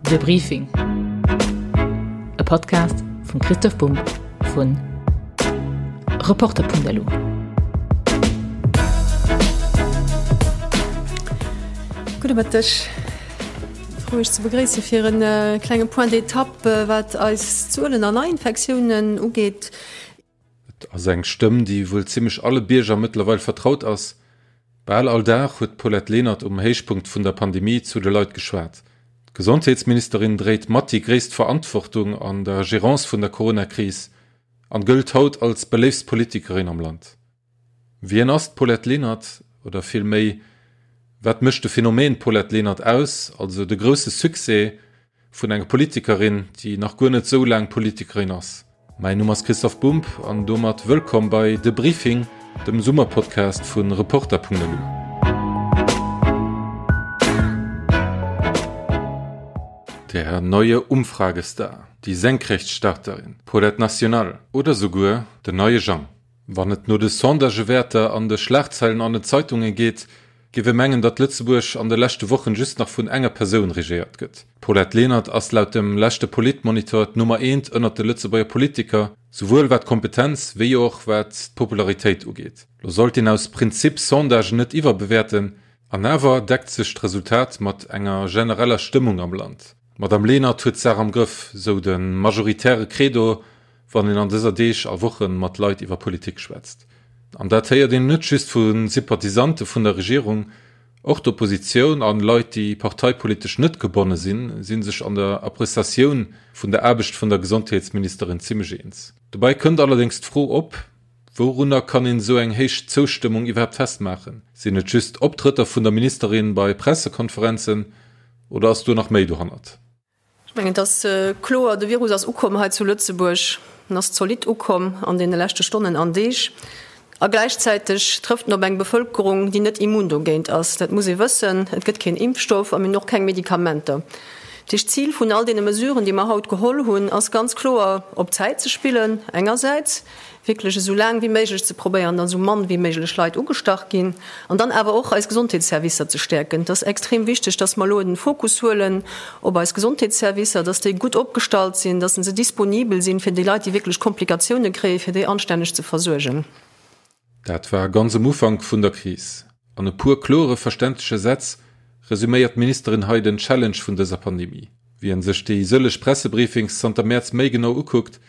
De Briefing, e Podcast vum Christoph Bumb vun Reporter.lu. Gudde Mëtteg. Frou iech ze begréisse fir e klenge Point d'étape wat eis Zuelen an Neiinfektiounen ugeet. Et ass eng Stëmm, déi wuel zimmlech alle Bierger mëttlerweil vertraut ass. Bal all Dag huet d'Paulette Lenert um Héichpunkt vun der Pandemie zu de Leit geschwat. D'Gesondheetsministerin dréit mat déi gréisst Verantwortung an der Gerance vun der Corona-Kris an gëllt haut als beléiftst Politikerin am Land. Wien ass d'Paulette Lenert? Oder vill méi, wat mécht de Phänomen Paulette Lenert aus, also de grousse Succès vun enger Politikerin, déi nach guer net esou laang Politikerin ass? Mäin Numm ass Christoph Bumb an domat wëllkomm bei De Briefing, dem Summerpodcast vu Reporter.lu. Der neue Umfragestar, die Senkrechtstarterin, Paulette National oder souguer den neie Jang. Wann et no de Sondagewäerter an de Schlagzeilen an den Zeitunge geet, géif ee mengen, datt Lëtzebuerg an de leschte Wochen just nach vun enger Persoun regéiert gëtt. D'Paulette Lenert ass laut dem leschte Politmonitor d'Nummer eent ënnert de Lëtzebuerger Politiker, souwuel wat d'Kompetenz wéi och wat d'Popularitéit ugeet. Lo sollt een aus Prinzip Sondagen net iwwerbewäerten, an awer deckt sech d'Resultat mat enger genereller Stëmmung am Land. D'Madame Lenert huet d'Saach am Grëff, sou de majoritäre Credo, wann een an dëser Deeg a Woche mat Leit iwwer Politik schwätzt. An dat héiert een net just vu Sympathisante vun der Regierung, och d'Oppositioun an Leit, déi parteipolitesch net gebonne sinn, si sech an der Appreciatioun vun der Aarbecht vun der Gesondheetsministerin zimmlech eens. Dobäi kënnt allerdéngs d'Fro op, Wourunner kann een esou eng héich Zoustëmmung iwwerhaapt festmaachen? Sinn et just Optrëtter vun der Ministerin bei Pressekonferenzen oder ass do nach méi dohannert? Ech mengen, et ass kloer, de Virus ass ukomm hei zu Lëtzebuerg. En ass zolidd ukomm an deene leschte Stonnen an Deeg. A gläichzäiteg trëfft en op eng Bevëlkerung, déi net immun dogéint ass. Dat muss ee wëssen. Et gëtt keen Impfstoff a mir hunn och keng Medikamenter. Dat heescht, d'Zil vun all deene Mesuren, déi mer haut geholl hunn, ass ganz kloer, op Zäit ze spillen engersäits, wierklech esou laang wéi méiglech ze probéieren, datt esou mann wéi méiglech Leit ugestach ginn, an dann awer och eis Gesondheetsservicer ze stäerken. Et ass extrem wichteg, datt mer elo den Fokus huelen op eis Gesondheetsservicer, datt déi gutt opgestallt sinn, datt se disponibel sinn, fir déi Leit, déi wierklech Komplikatioune kréien, fir déi anstänneg ze versuergen. Dat war ganz um Ufank vun der Kris. An e puer klore, verständleche Sätz resuméiert d'Ministerin hei den Challenge vun dëser Pandemie. Wien sech déi sëlleg Pressebriefings zanter Mäerz méi genau ukuckt,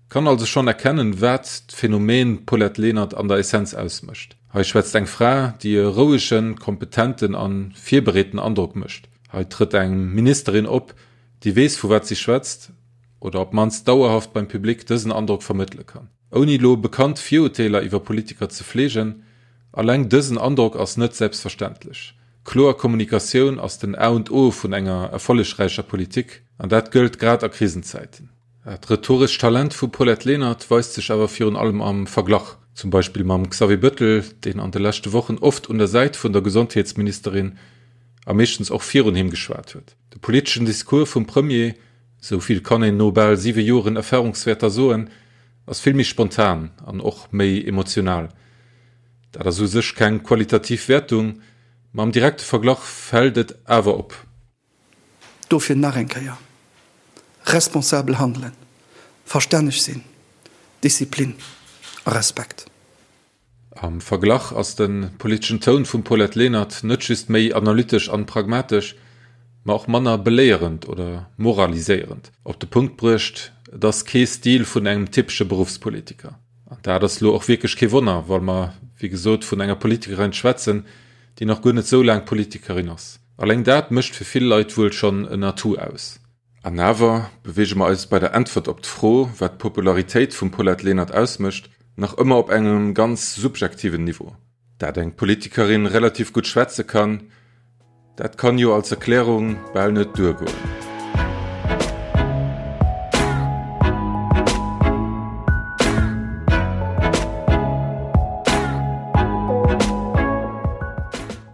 kann also schonn erkennen, wat d'Phänomen Paulette Lenert an der Essenz ausmécht. Hei schwätzt eng Fra, déi e rouegen, kompetenten a virbereeten Androck mécht. Hei trëtt eng Ministerin op, déi weess, vu wat si schwätzt, oder op d'mannst dauerhaft beim Public dësen Androck vermëttele kann. Ouni elo bekannt Virurteeler iwwer Politiker ze fleegen, alleng dësen Androck ass net selbstverständlech. Kloer Kommunikatioun ass den A und O vun enger erfollegräicher Politik, an dat gëllt grad a Krisenzäiten. Dat rhetorescht Talent vum Paulette Lenert weist sech awer virun allem am Verglach, zum Beispill mam Xavier Bëttel, deen an de leschte Wochen oft un der Säit vun der Gesondheetsministerin a meeschtens och virun him geschwat huet. De politeschen Discours vum Premier, esou vill kann een no bal siwe Joren Erfarungswäerter soen, ass vill méi spontan an och méi emotional. Dat ass u sech keng qualitativ Wäertung, ma am direkte Verglach fält et awer op. Dofir nach eng Kéier, responsabel handelen, verstänneg sinn, Disziplin a Respekt. Am Verglach ass de politeschen Toun vum Paulette Lenert net just méi analytesch an pragmatesch, ma och manner beléierend oder moraliséierend. Op de Punkt bruecht, et ass kee Stil vun engem typesche Beruffspolitiker. An dat ass lo och wierklech kee Wonner, well mer wéi gesot vun enger Politikerin schwätzen, déi nach guer net sou laang Politikerin ass. Alleng dat mécht fir vill Leit wuel schonn en Atout aus. An awer beweege mer eis bei der Äntwert op d'Fro, wat d'Popularitéit vum Paulette Lenert ausmécht, nach ëmmer op engem ganz subjektiven Niveau. Dat eng Politikerin relativ gutt schwätze kann, dat kann jo als Erklärung bal net duergoen.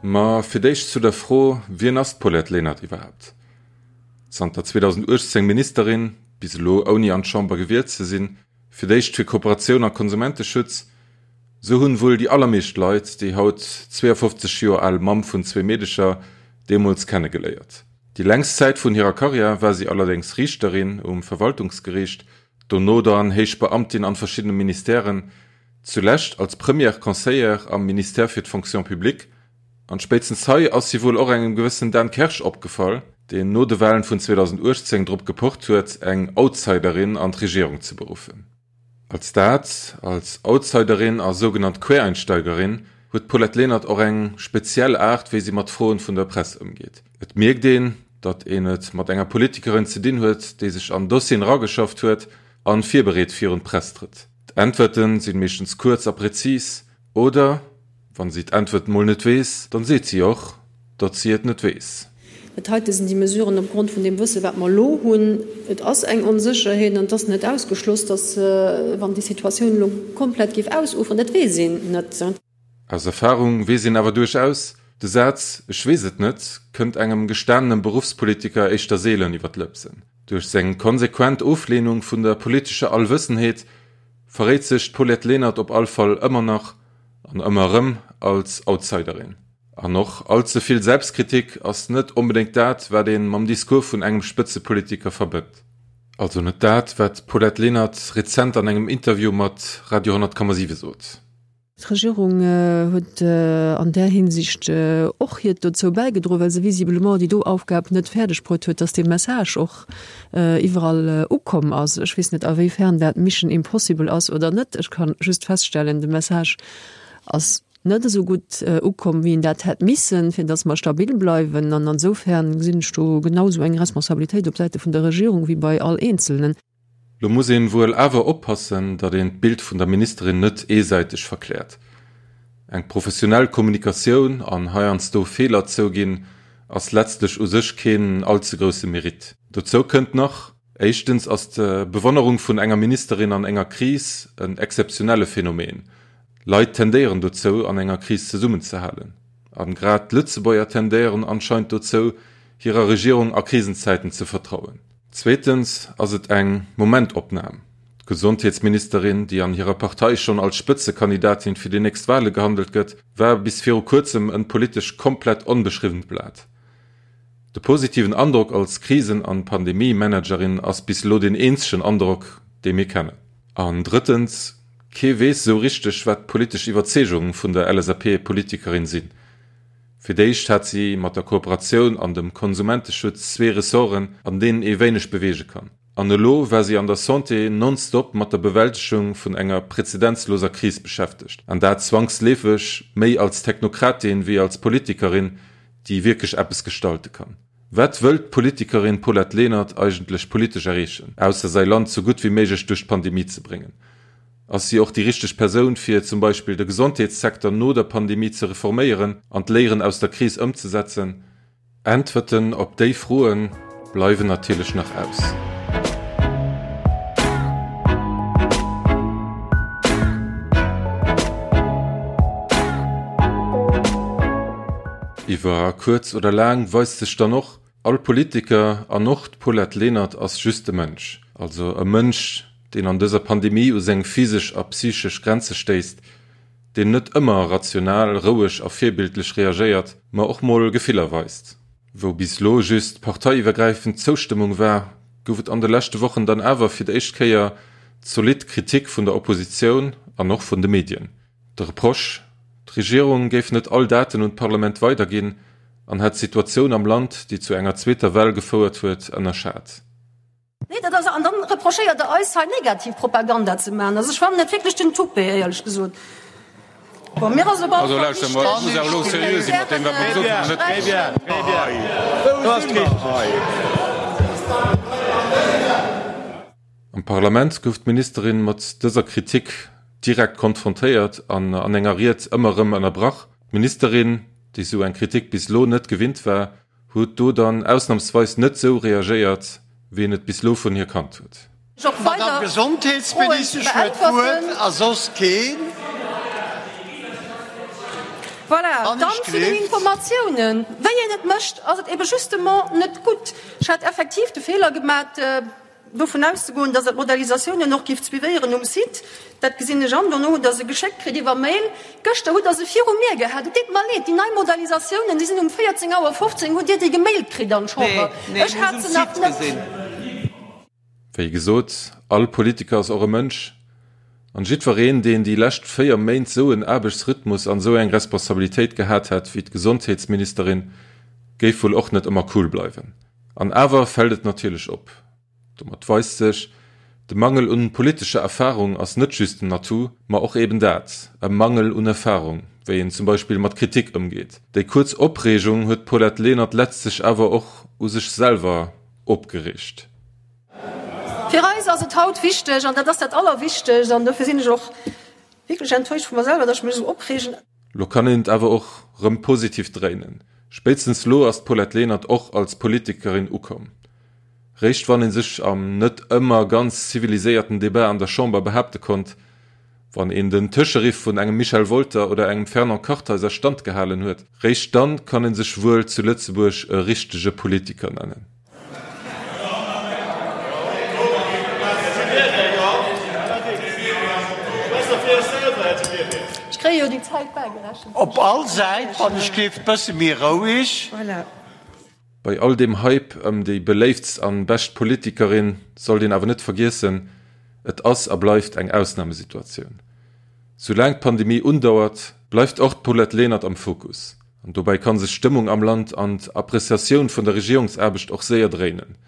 Ma fir d'éischt zu der Fro, Wien ass d'Paulette Lenert iwwerhaapt? Zanter 2018 Ministerin, bis elo ouni an d'Chamber gewielt ze sinn, fir d'éischt fir Kooperatioun a Konsumenteschutz, sou hunn wuel déi allermeescht Leit déi haut 52 Joer al Mamm vun zwee Meedecher deemools kennegeléiert. Déi längst Zäit vun hirer Karriär war si allerdéngs Riichterin um Verwaltungsgeriicht, dono dann héich Beamtin an verschiddene Ministèren, zulescht als Première Conseillère am Ministère fir d'Fonction publique. An spéitstens hei ass si wuel och engem gewëssen Dan Kersch opgefall, deen no de Wahlen vun 2018 drop gepocht huet, eng Outsiderin an d'Regierung ze beruffen. Als dat, als Outsiderin a sougenannt Quereinsteigerin, huet d'Paulette Lenert och eng speziell Aart, wéi si mat Froen vun der Press ëmgeet. Et mierkt een, datt een et mat enger Politikerin ze dinn huet, déi sech an Dossieren erageschafft huet an virbereet virun d'Press trëtt. D'Äntwerten sinn meeschtens kuerz a präzis oder, Wann si d'Äntwert mol net weess, dann seet si och, datt si et net weess. Dat heite sinn déi Mesuren opgrond vun deem Wësse wat mer elo hunn. Et ass eng Onsécherheet an et ass net ausgeschloss, datt, wann déi Situatioun elo komplett géif ausuferen, dat weess een net. Aus Erfahrung weess een awer duerchaus, de Saz Ech weess et net kënnt engem gestanenem Beruffspolitiker éischter seelen iwwer d'Lëpsen. Duerch seng konsequent Ofleenung vun der politescher Allwëssenheet verréit sech d'Paulette Lenert op all Fall ëmmer nach An ëmmer erëm als Outsiderin. An och all ze vill Selbstkritik ass net onbedéngt dat, wat ee mam Discours vun engem Spëtzepolitiker verbënnt. Also net dat, wat d'Paulette Lenert rezent an engem Interview mat Radio 10,7 sot. D'Regierung huet an där Hinsicht och hiert dozou bäigedroen, well se visiblement déi do Aufgab net fäerdeg bruet huet, dass dee Message och iwwerall ukomm ass. Ech weess net, awéifern dat Mission Impossible ass oder net. Ech ka just feststellen, de Message ass net esou gutt ukomm, wéi en dat hätt missen, fir datt mer stabil bleiwen. An ansoufern gesinn ech do genau esou eng Responsabilitéit op Säite vun der Regierung wéi bei all Eenzelnen. Lo muss een wuel awer oppassen, datt een d'Bild vun der Ministerin net eesäiteg verkläert. Eng professionell Kommunikatioun an heiansdo Feeler zouginn, ass letztlech u sech keen all ze grousse Mérite. Dozou kënnt nach, Éischtens ass d'Bewonnerung vun enger Ministerin an enger Kris en exzeptionelle Phänomen. Leit tendéieren dozou, an enger Kris zesummenzehalen. An grad d'Lëtzebuerger tendéieren anscheinend dozou, hirer Regierung a Krisenzäiten ze vertrauen. Zweetens ass et eng Momentopnam. D'Gesondheetsministerin, déi an hirer Partei schonn als Spëtzekandidatin fir déi nächst Wale gehandelt gëtt, war bis viru kuerzem en politesch komplett onbeschriwwent Blat. De positiven Androck als Krisen an Pandemie-Managerin ass bis elo deen eenzegen Androck, dee mir kennen. An drëttens, kee weess esou richteg, wat d'politesch Iwwerzeegung vun der LSAP-Politikerin sinn. Fir d'éischt hat si mat der Kooperatioun an dem Konsumenteschutz zwee Ressorten, an deenen ee wéineg beweege kann. An elo war si an der Santé nonstop mat der Bewältegung vun enger prezedenzloser Kris beschäftegt, an dat zwangsleefeg méi als Technokratin wéi als Politikerin, déi wierklech eppes gestalte kann. Wat wëllt d'Politikerin Paulette Lenert eigentlech politesch erreechen, ausser säi Land sou gutt wéi méiglech duerch d'Pandemie ze bréngen? Ass si och déi richteg Persoun, fir zum Beispill de Gesondheetssecteur no der Pandemie ze reforméieren an d'Léieren aus der Kris ëmzesetzen? Äntwerten op déi Froe bleiwen natierlech nach aus. Iwwer kuerz oder laang weist sech dann och, All Politiker, an och d'Paulette Lenert, ass just e Mënsch. Also e Mënsch, deen an dëser Pandemie u seng physesch a psychesch Grenze stéisst, deen net ëmmer rational, roueg a virbildlech reagéiert, ma och mol Gefiller weist. Wou bis lo just parteiiwwergräifend Zoustëmmung war, gouf et an de leschte Wochen dann awer fir d'éischt Kéier zolidd Kritik vun der Oppositioun an och vun de Medien. De Reproche, d'Regierung géif net all Daten un d'Parlament weiderginn an hätt d'Situatioun am Land, déi zu enger zweeter Well gefouert huet, ënnerschat. Nee, dat ass, an dann reprochéiert Der eis hei negativ Propaganda ze maachen. Also ech fannen et wierklech den Toupet, éierlech gesot. Bon, mir ass op alle Fall wichteg. Am Parlament gouf d'Ministerin mat dëser Kritik direkt konfrontéiert an an enger Ried ëmmer erëm ënnerbrach. D'Ministerin, déi sou eng Kritik bis elo net gewinnt war, huet do dann ausnamsweis net sou reagéiert, wéi een et bis lo vun hir kannt huet. D'Madame Gesondheetsministesch huet d'Wuert a soss keen. Voilà, dann zu den Informatiounen. Wéi een et mécht, ass et ebe justement net gutt. Ech hat effektiv de Feeler gemat. dovun auszegoen, dass Der d'Modellisatiounen och gift suivéieren um Site. Dat gesinn ech an. Dono hutt Der se geschéckt kritt iwwer Mail. Gëschter hutt Der se viru mir gehat. Et deet mer leed, déi nei Modellisatiounen, déi sinn um 14 Auer 15 hutt Dir déi gemailt kritt an d'Chamber. Ech hat se nach net. Wéi gesot, all Politiker ass och e Mënsch. An jiddwereen, deen déi lescht 4 Méint sou en Aarbechtsrhythmus an sou eng Responsabilitéit gehat hätt wéi d'Gesondheetsministerin, géif wuel och net ëmmer cool bleiwen. An awer fält et natierlech op. Domat weist sech, de Mangel un politescher Erfarung ass net just en Atout, ma och eben dat, e Mangel un Erfarung, wéi een zum Beispill mat Kritik ëmgeet. Déi kuerz Opreegung huet d'Paulette Lenert letztlech awer och u sech selwer opgeriicht. Fir eis ass et haut wichteg, an dat ass dat Allerwichtegst, an dofir sinn ech och wierklech enttäuscht vu mer selwer, datt ech mech esou opreegen. Lo kann een et awer och rëm positiv dréinen. Spéitstens lo ass d'Paulette Lenert och als Politikerin ukomm. Réischt wann ee sech am net ëmmer ganz ziviliséierten Debat an der Chamber behaapte konnt, wann een den Tëscheriff vun engem Michel Wolter oder engem Fernand Kartheiser standgehalen huet, réischt dann kann ee sech wuel zu Lëtzebuerg e richtege Politiker nennen. Op all Säit, wann ech géif, bësse méi roueg. Bei all deem Hype ëm déi beléiftst an bescht Politikerin sollt een awer net vergiessen, et ass a bleift eng Ausnamesituatioun. Soulaang d'Pandemie undauert, bleift och d'Paulette Lenert am Fokus. An dobäi ka sech d'Stëmmung am Land an d'Appreciatioun vun der Regierungsaarbecht och séier dréinen.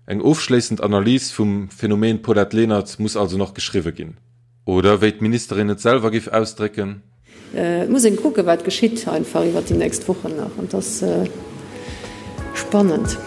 Eng ofschléissend Analys vum Phänomen Paulette Lenert muss also nach geschriwwe ginn. Oder wéi d'Ministerin et selwer géif ausdrécken. Et muss een kucken, wat geschitt einfach iwwert déi nächst Wochen nach. An et ass spannend.